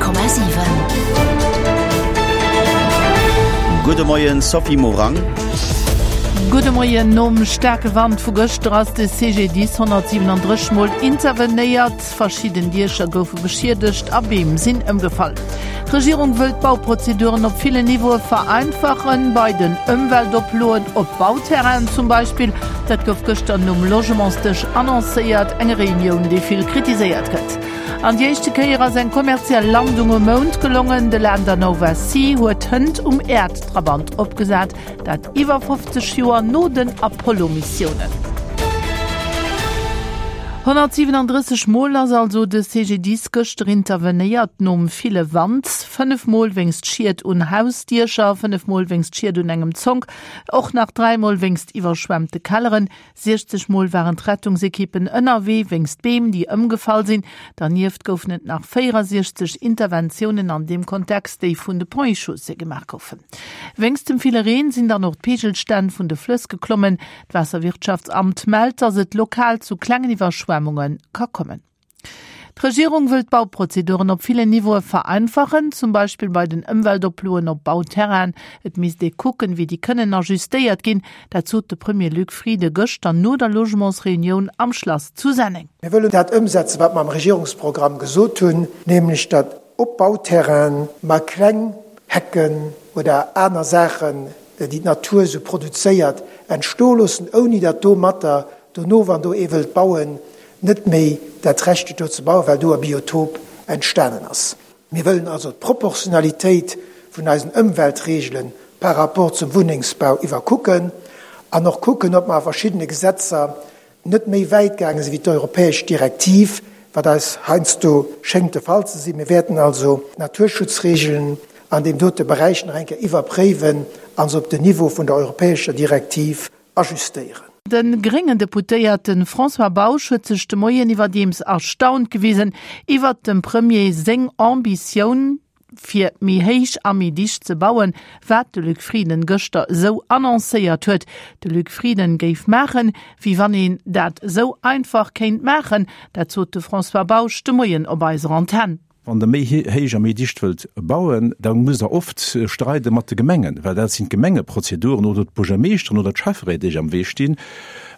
100,7. Gudde Moien Sophie Morang. Gudde Moien. Nom staarke Wand vu gëschter ass de CGDIS 137 Mol intervenéiert. Verschidden Diecher goufe beschiedegt a Beem sinn ëmgefall. D'Regierung wëll d'Bauprozeduren op villen Niveaue vereinfachen, bei den Ëmweltoploen op Bauterrainen zum Beispill. Dat gouf gëschter nom Logementsdësch annoncéiert, eng Reunioun, déi vill kritiséiert gëtt. An déi éischte Kéier ass eng kommerziell Landung um Mound gelongen. De Lander Nova C huet hënt um Äerdtrabant opgesat, dat iwwer 50 Joer no den Apollo-Missiounen. 137 Mol ass also de CGDIS gëschter intervenéiert nom ville Wand. 5 Mol wéinst Schied un Hausdiecher, 5 Mol wéinst Schied un engem Zonk, och nach 3 Mol wéinst iwwerschwemmte Kelleren. 60 Mol waren d'Rettungsekippen ënnerwee wéinst Beem, déi ëmgefall sinn. Dernieft goufen et nach 64 Interventiounen an deem Kontext, déi vun de Ponts et Chaussées gemaach goufen. Wéinst dem ville Reen sinn dann och d'Peegelstänn vun de Flëss geklommen. D'Waasserwirtschaftsamt mellt, datt et lokal zu klengen Iwwerschwemmunge ka kommen. D'Regierung wëll d'Bauprozeduren op villen Niveaue vereinfachen, zum Beispill bei den Ëmweltoploen op Bauterrainen. Et misst ee kucken, wéi déi kënnen ajustéiert ginn. Dat sot de Premier Luc Frieden gëschter no der Logementsreunioun am Schlass zu Senneng. Mir wëllen dat ëmsetzen, wat mer am Regierungsprogramm gesot hunn, nämlech datt op Bauterrainen mer kleng Hecken oder aner Saachen, déi d'Natur esou produzéiert, entstoe loossen, ouni datt domatter dono, wann do ee wëllt bauen, net méi dat Recht huet do ze bauen, well do e Biotop entstanen ass. Mir wëllen also d'Proportionalitéit vun eisen Ëmweltregele par rapport zum Wunnengsbau iwwerkucken an och kucken, ob mer a verschiddene Gesetzer net méi wäit gaange sinn wéi d'europäesch Direktiv, wat eis heiansdo schéngt de Fall ze sinn. Mir wäerten also d'Naturschutzregelen an deem dote Beräich nach eng Kéier iwwerpréiwen a se op den Niveau vun der europäescher Direktiv ajustéieren. De gréngen Deputéierte François Bausch huet sech de Moien iwwerdeems erstaunt gewisen iwwert dem Premier seng Ambitioun, fir méi héich a méi dicht ze bauen, wat de Luc Frieden gëschter esou annoncéiert huet. De Luc Frieden géif maachen, wéi wann een dat esou einfach kéint maachen. Dat sot de François Bausch de Moien op eiser Antenn. Wann Der méi héich a méi dicht wëllt bauen, da musst Der oft streide mat de Gemengen, well dat sinn d'Gemengeprozeduren oder d'Buergermeeschteren oder d'Schäfferéit, déi am Wee stinn,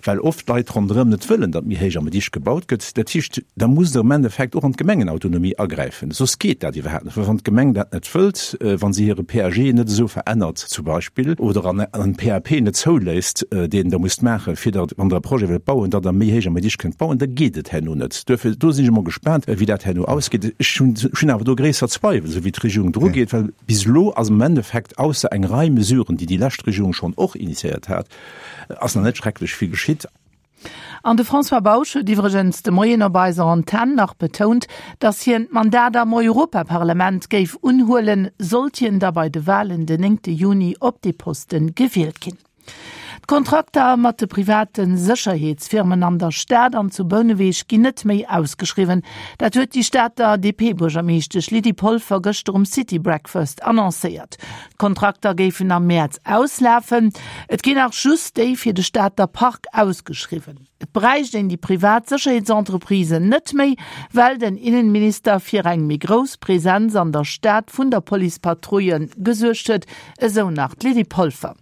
well oft d'Leit ronderëm net wëllen, datt méi héich a méi dicht gebaut gëtt. Dat heescht, da musst Der am Endeffekt och an d'Gemengenautonomie agräifen, soss geet dat iwwerhaapt net. Well wann d'Gemeng dat net wëllt, wa si hire PAG net esou verännert zum Beispill oder en PAP net zouléisst, deen Der musst maachen, fir datt, wann Der e Projet wëllt bauen, datt Der méi héich a méi dicht kënnt bauen, da geet et herno net. Duerfir, do sinn ech emol gespaant, wéi dat herno ausgeet. Ech hunn, ech hunn awer do gréisser Zweiwel, esou wéi d'Regierung drugeet, well bis elo ass am Endeffekt, ausser eng Rei Mesuren, déi déi lescht Regierung schonn och initiéiert hat, ass nach net schrecklech vill geschitt. An de François Bausch huet iwwregens de Moien op eiser Antenn nach betount, datt hien d'Mandat am Europaparlament géif unhuelen, sollt hien da bei de Walen den néngte Juni op dee Poste gewielt ginn. D'Kontrakter mat de private Sécherheetsfirmen an der Stad an zu Bouneweg ginn net méi ausgeschriwwen. Dat huet déi Stater DP-Buergermeeschtesch Lydie Polfer gëschter um City Breakfast annoncéiert. D'Kontrakter géifen am Mäerz auslafen. Et ginn nach just déi fir de Stater Park ausgeschriwwen. Et bräicht een déi privat Sécherheetsentreprisen net méi, well den Innenminister fir eng méi grouss Presenz an der Stad vun der Policepatrouille gesuergt huet, esou nach d'Lydie Polfer.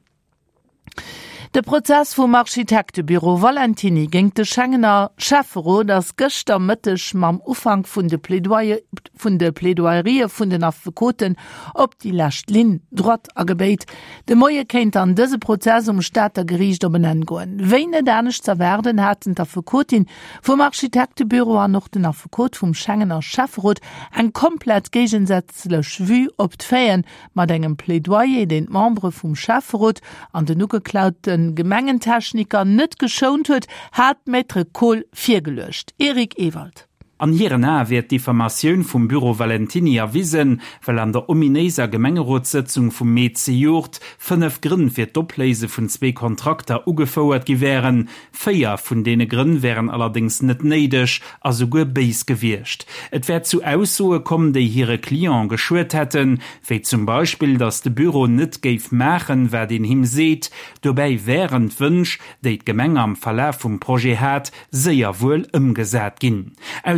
De Prozess vum Architektebüro Valentiny géint de Schengener Schäfferot ass gëschter Mëtteg mam Ufank vun de vun de Plaidoyerië vun den Affekoten op déi lescht Ligne droite agebéit. De Moie kéint dann dëse Prozess um Stater Geriicht op en Enn goen. Wéi net anescht z'erwaarden, haten d'Affekotin vum Architektebüro an och den Affekot vum Schengener Schäfferot eng komplett géigensätzlech Vue op d'Faiten, Mat engem Plädoyer, deen d'Membere vum Schäfferot an den ugeklaute Gemengentechniker net geschount huet, hat d'Maître Kohl virgeluecht. Eric Ewald. An hiren Ae wier d'Diffamatioun vum Büro Valentiny erwisen, well an der ominéiser Gemengerotssëtzung vum Mee zejoert 5 Grënn fir d'Opléise vun zwee Kontrakter ugefouert gi wären, Véier vun deene Grënn wären allerdéngs net néideg a souguer béis gewiescht. Et wär zu Aussoe komm, déi hire Client geschuet hätten, wéi zum Beispill, datt de Büro net géif maachen, wat een him seet. Dobäi wären d'Wënsch, déi d'Gemeng am Verlaf vum Projet hat, séier wuel ëmgesat ginn.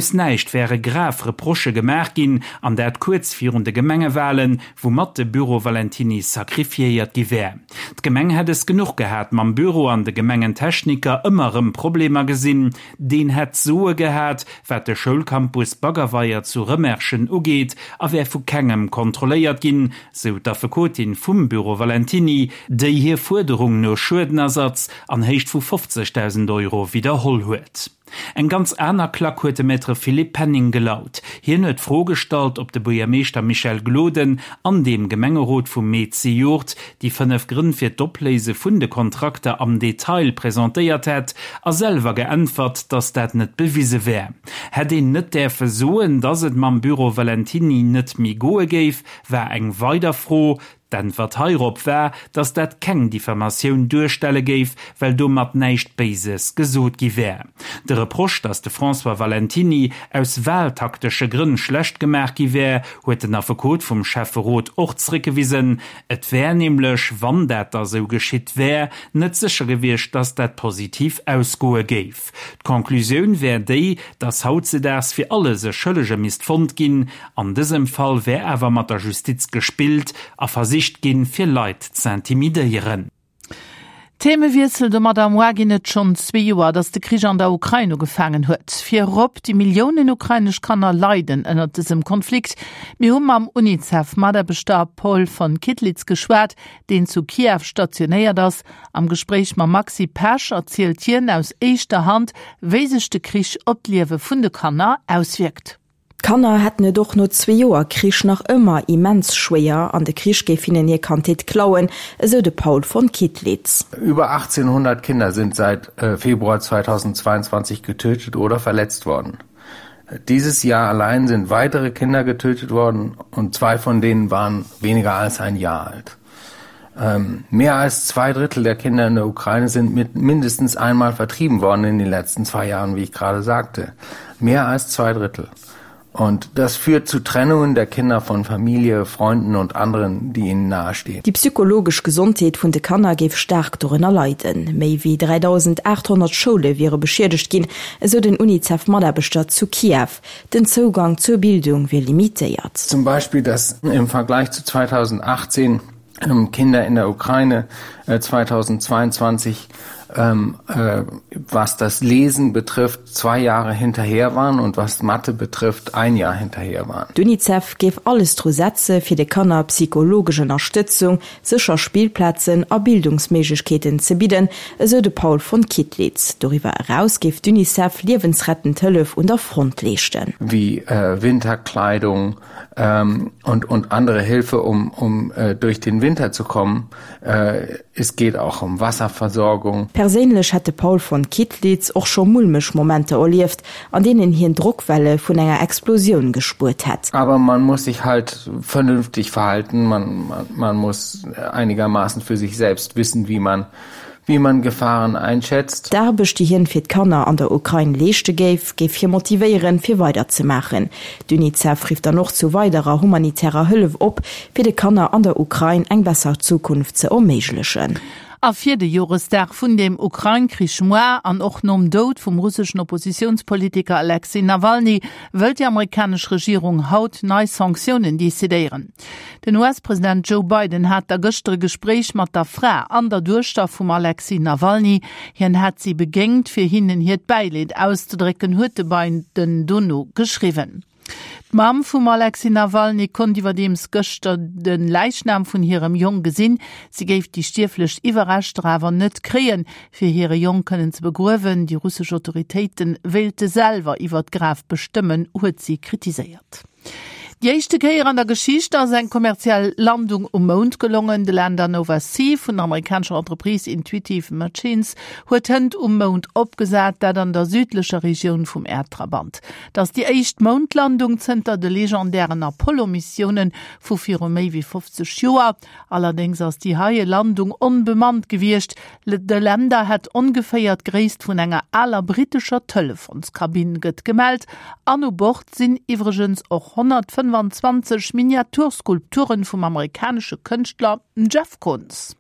Aus näischt wäre grav Reprochë gemaach ginn, an dat kuerz virun de Gemengewalen, woumat de Büro Valentiny sacrifiéiert gi wär. D'Gemeng hätt es genuch gehat mam Büro an de Gemengentechniker ëmmer erëm Problemer gesinn. Deen hätt d'Soe gehat, wat de Schoulcampus Baggerweier zu Rëmerschen ugeet a wär vu kengem kontrolléiert ginn, sou d'Affekotin vum Büro Valentiny, déi hir Fuerderung no Schuedenersatz an Héicht vu 50.000 Euro widderholl huet. Eng ganz aner Klack huet de Maître Philippe Penning gelaut. Hien huet d'Fro gestallt, ob de Buergermeeschter Michel Gloden an dem Gemengerot vum Mee zejoert déi 5 Grënn fir d'Opléise vun de Kontrakter am Detail presentéiert hätt a selwer geäntwert, datt dat net bewise wär. Hätt een net däerfe soen, datt et mam Büro Valentiny net méi goe géif, war eng weider Fro. D'Äntwert heirop war, datt dat keng Diffamatioun duerstelle géif, well domat näischt Béises gesot gi wär. De Reproche, datt de François Valentiny aus wahltaktesche Grënn schlecht gemaach gi wär, huet den Affekot vum Schäfferot och zréckgewisen. Et wär nämlech, wann dat da sou geschitt wär, net sécher gewiescht, datt dat positiv ausgoe géif. D'Conclusioun wär déi, datt hautzedaags fir alles e Schëllege misst fonnt ginn. An dësem Fall wär awer mat der Justiz gespillt a versicht ginn, fir Leit z'intimidéieren. Themewiessel, Domadder moi ginn et schonn zwee Joer, datt de Krich an der Ukrain ugefaangen huet. Virop déi Milliounen ukrainesch Kanner leiden ënnert dësem Konflikt. Mir hu mam UNICEF-Mataarbechter Paul von Kittlitz geschwat, deen zu Kiew stationéiert ass. Am Gespréich mam Maxi Pesch erzielt hien aus éischter Hand, wéi sech de Krich op d'Liewe vun de Kanner auswierkt. D'Kanner hätten et och no zwee Joer Krich nach ëmmer immens schwéier an de Krich géif hinnen hir Kandheet klauen, esou de Paul von Kittlitz. Über 1800 Kinder sind seit Februar 2022 getötet oder verletzt worden. Dieses Jahr allein sind weitere Kinder getötet worden und zwei von denen waren weniger als ein Jahr alt. Ähm, mehr als zwei Drittel der Kinder in der Ukraine sind mit mindestens einmal vertrieben worden in den letzten zwei Jahren, wie ich gerade sagte. Mehr als zwei Drittel. Und das führt zu Trennungen der Kinder von Familie, Freunden und anderen, die ihnen nahestehen. Déi psychologesch Gesondheet vun de Kanner géif staark dorënner leiden. Méi wéi 3.800 Schoule wiere beschiedegt ginn, esou den UNICEF-Mataarbechter zu Kiew. Den Zougang zur Bildung wier limitéiert. Zum Beispiel, dass im Vergleich zu 2018 ähm, Kinder in der Ukraine 2022 äh, ähm, äh, was das Lesen betrifft, zwei Jahre hinterher waren und was Mathe betrifft, ein Jahr hinterher waren. D'UNICEF géif alles dru setze fir de Kanner psychologesch Ënnerstëtzung, sécher Spillplazen a Bildungsméiglechkeeten ze bidden, esou de Paul von Kittlitz. Doriwwer eraus géif d'UNICEF liewensrettend Hëllef un der Front leeschten. Wéi Winterkleidung und und andere Hilfe um um durch den Winter zu kommen. Es geht auch um Wasserversorgung. Perséinlech hätt de Paul von Kittlitz och scho mulmeg Momenter erlieft, an deenen hien Drockwelle vun enger Explosioun gespuert hätt. Aber man muss sich halt vernünftig verhalten, man, man, man muss einigermaßen für sich selbst wissen, wie man, wie man Gefahren einschätzt. D'Aarbecht, déi hien fir d'Kanner an der Ukrain leeschte géif, géif hie motivéieren, fir weider ze maachen. D'UNICEF rifft dann och zu weiderer humanitärer Hëllef op, fir de Kanner an der Ukrain eng besser Zukunft ze erméiglechen. A fir de Joresdag vun dem Ukrain-Krich moar an och nom Doud vum russeschen Oppositiounspolitiker Alexej Nawalny wëllt déi amerikanesch Regierung haut nei Sanktiounen decidéieren. Den US-President Joe Biden hat da gëschter e Gespréich mat der Fra an der Duechter vum Alexej Nawalny. Hien hätt si begéingt, fir hinnen hiert Bäileed auszedrécken, huet de Biden dono geschriwwen. D'Mamm vum Alexej Nawalny konnt iwwerdeems gëschter de Läichnam vun hirem Jong gesinn. Si géif déi stierflech Iwwerreschter awer net kréien, fir hire Jong kënnen ze begruewen. Déi russesch Autoritéite wéilte selwer iwwer d'Graf bestëmmen, huet si kritiséiert. Déi éischte Kéier an der Geschicht ass eng kommerziell Landung um Mound gelongen. De Lander Nova C vun der amerikanescher Entreprise Intuitive Machines huet hënt um Mound opgesat, dat an der südlecher Regioun vum Äerdtrabant. Et ass déi éischt Moundlandung zënter de legendären Apollo-Missioune vu viru méi wéi 50 Joer. Allerdéngs ass déi heie Landung onbemannt gewiescht. De Lander hätt ongeféier d'Gréisst vun enger aler brittescher Telefonskabinn, gëtt gemellt. An u Bord sinn iwwregens och 125 Miniaturskulpturen vum amerikanesche Kënschtler Jeff Koons.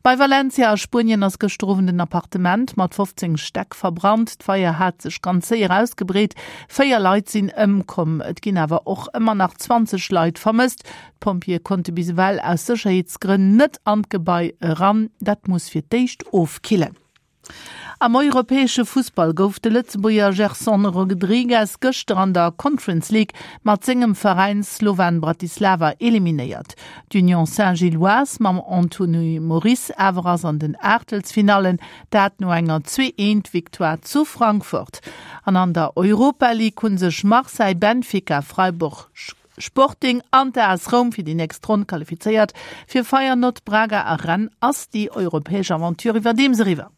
Bei Valencia a Spuenien ass gëschter Owend en Appartement mat 15 Stäck verbrannt. D'Feier hat sech ganz séier ausgebreet. 4 Leit sinn ëmkomm. Et ginn awer och ëmmer nach 20 Leit vermësst. D'Pompjeeë konnte bis ewell aus Sécherheetsgrënn net an d'Gebai eran. Dat muss fir d'éischt ofkillen. Am europäesche Fussball gouf de Lëtzebuerger Gerson Rodrigues gëschter an der Conference League mat sengem Veräin Slovan Bratislava eliminéiert. D'Union Saint-Gilloise mam Anthony Moris awer ass an den Aachtelsfinallen, dat no enger 2 Eent Victoire zu Frankfurt. An an der Europa League hu sech Marseille, Benfica, Freiburg, Sporting an d'AS Roum fir déi nächst Ronn qualifizéiert. Fir Feyenoord, Braga a Rennes ass déi europäesch Aventure iwwerdeems eriwwer.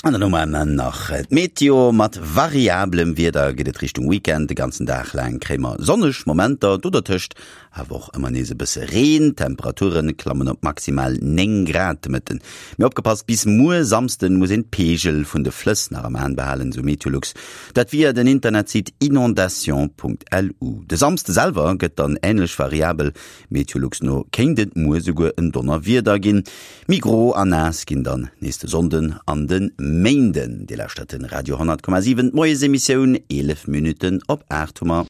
An dann hu mer nach d'Meteo, Mat variablem Wieder geet et Richtung Weekend. De ganzen Dag laang kréie mer sonneg Momenter, do dertëscht awer och ëmmer nees e bësse Reen. D'Temperature klammen op maximal 9 Grad de Mëtten. Mee opgepasst, bis muer Samsden muss een d'Peegel vun de Flëss nach am Aen behalen, sou Meteolux. Dat via den Internetsite inondation.lu. De Samsde selwer gëtt dann änlech variabel, Meteolux no kéint et muer souguer en Donnerwieder ginn. Méi gro a naass ginn dann nees de Sonnden an de Méinden. Dir lauschtert de Radio 10,7, d'Moiesemissioun, 11 Minutten op 8 hu mer.